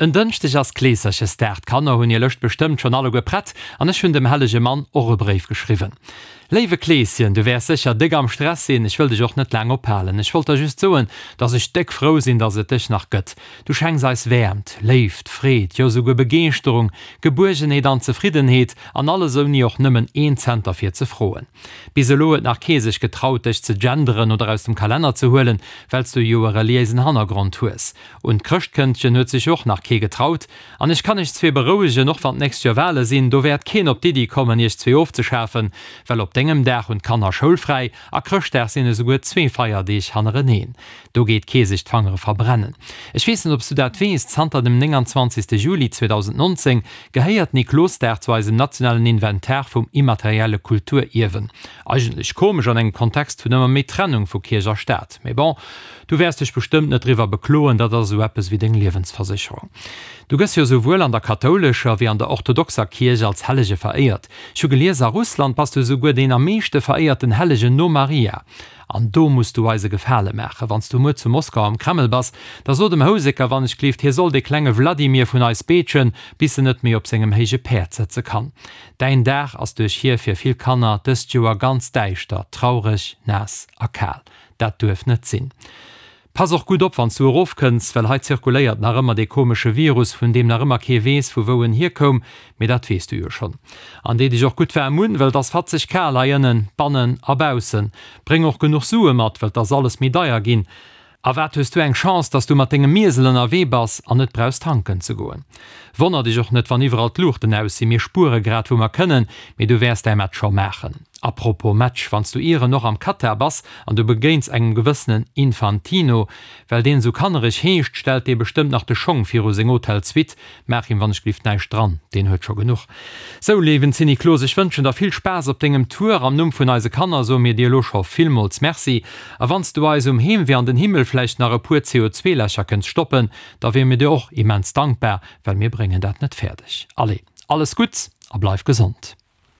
En Dënschdeg ass Kleeserchesdag, d'Kanner hunn hir Lëscht bestëmmt schonn alleguer prett an ech hunn dem hellege Mann och e Bréif geschriwwen. Léiwe Kleeschen, du wäers sécher déck am Stress sinn, ech wëll dech och net laang ophalen. Ech wollt der just soen, dass ech déck frou sinn, dass et dech nach gëtt. Du schenks eis Wäermt, Léift, Freed, jo souguer Begeeschterung, Gebuergenheet an Zefriddenheet, an alles ouni och nëmmen een Cent derfir ze froen. Bis elo huet nach kee sech getraut, dech ze genderen oder aus dem Kalenner ze huelen, well s du jo e reliéisen Hannergrond hues. Un d'Chrëschtkëndchen huet sech och nach kee getraut. An ech kann iech zwee berouegen, och wann d'nächst Joer Wale sinn, do wäert keen op d'Iddi kommen, iech zwee ofzeschafen, well op dengem Dag hunn d'Kanner schoulfräi a Chrëschtdag sinn esouguer zwee Feierdeeg hannereneen. Do geet kee sech d'Fangere verbrennen. Ech weess net, ob s du dat weess, zanter dem 29. Juli 2019 gehéiert Niklosdag zu eisem nationalen Inventar vum immaterielle Kulturierwen. Eigentlech komesch an engem Kontext vun ëmmer méi Trennung vu Kierch a Staat. Mee bon, Du wäers dech bestëmmt net driwwer bekloen, dat ass esou eppes wéi deng Liewensversécherung. Du gëss jo esouwuel an der kathoulescher wéi an der orthodoxer Kierch als Hellege veréiert. Ech hu gelies, a Russland bass du esouguer deen am meeschte veréierten Hellegen no Maria. An do muss du eis e Gefale maachen, Wann s du muer zu Moskau am Kreml bass, da so dem Houseker wannechgelift, hie soll dee klenge Wladimir vun eis beetschen, bis en net méi op sengem héije Päerd sëtze kann. Däin Dag ass duerch hie fir vill Kanner dëst Joer ganz däischter, traureg, naass a kal. Dat duerf net sinn. Pass och gutt op wanns du erofkënns, well hei zirkuléiert nach ëmmer dee komesche Virus, vun deem nach ëmmer kee weess vu wou en hierkoum, mee dat weess du jo schonn. An dee dech och gutt waarm un, well et ass fatzeg kal hei ënnen, bannen a baussen. Bréng och genuch Sue mat, well 't ass alles méi deier ginn. A wat hues du eng Chance, dass du mat dengem Miesel ënnerwee bass an net brauchs tanken ze goen. Wonner dech och net wann iwwerall d'Luuchten aus sinn, mir spuere grad wou mer kënnen, mee du wäers däi Match scho maachen. A propos Match, wanns du ieren och am Katar bass an du begéins engem gewëssenen Infantino, well deen esou kannereg heescht, stellt dee bestëmmt nach de Schong viru seng Hotel-Suite. Maach him wannechgelift näischt dran, deen huet scho genuch. Sou, léiwen Zinniklos, ech wënschen der vill Spaass op dengem Tour. Am Numm vun eise Kanner soe mir dir elo scho villmools Merci. A wanns du eis um Heemwee an den Himmel vläicht nach e puer CO2-Lächer kënns stoppen, da wiere mir dir och immens dankbar, well mir bréngen dat net fäerdeg. Allez, alles Gutts a bleif gesond!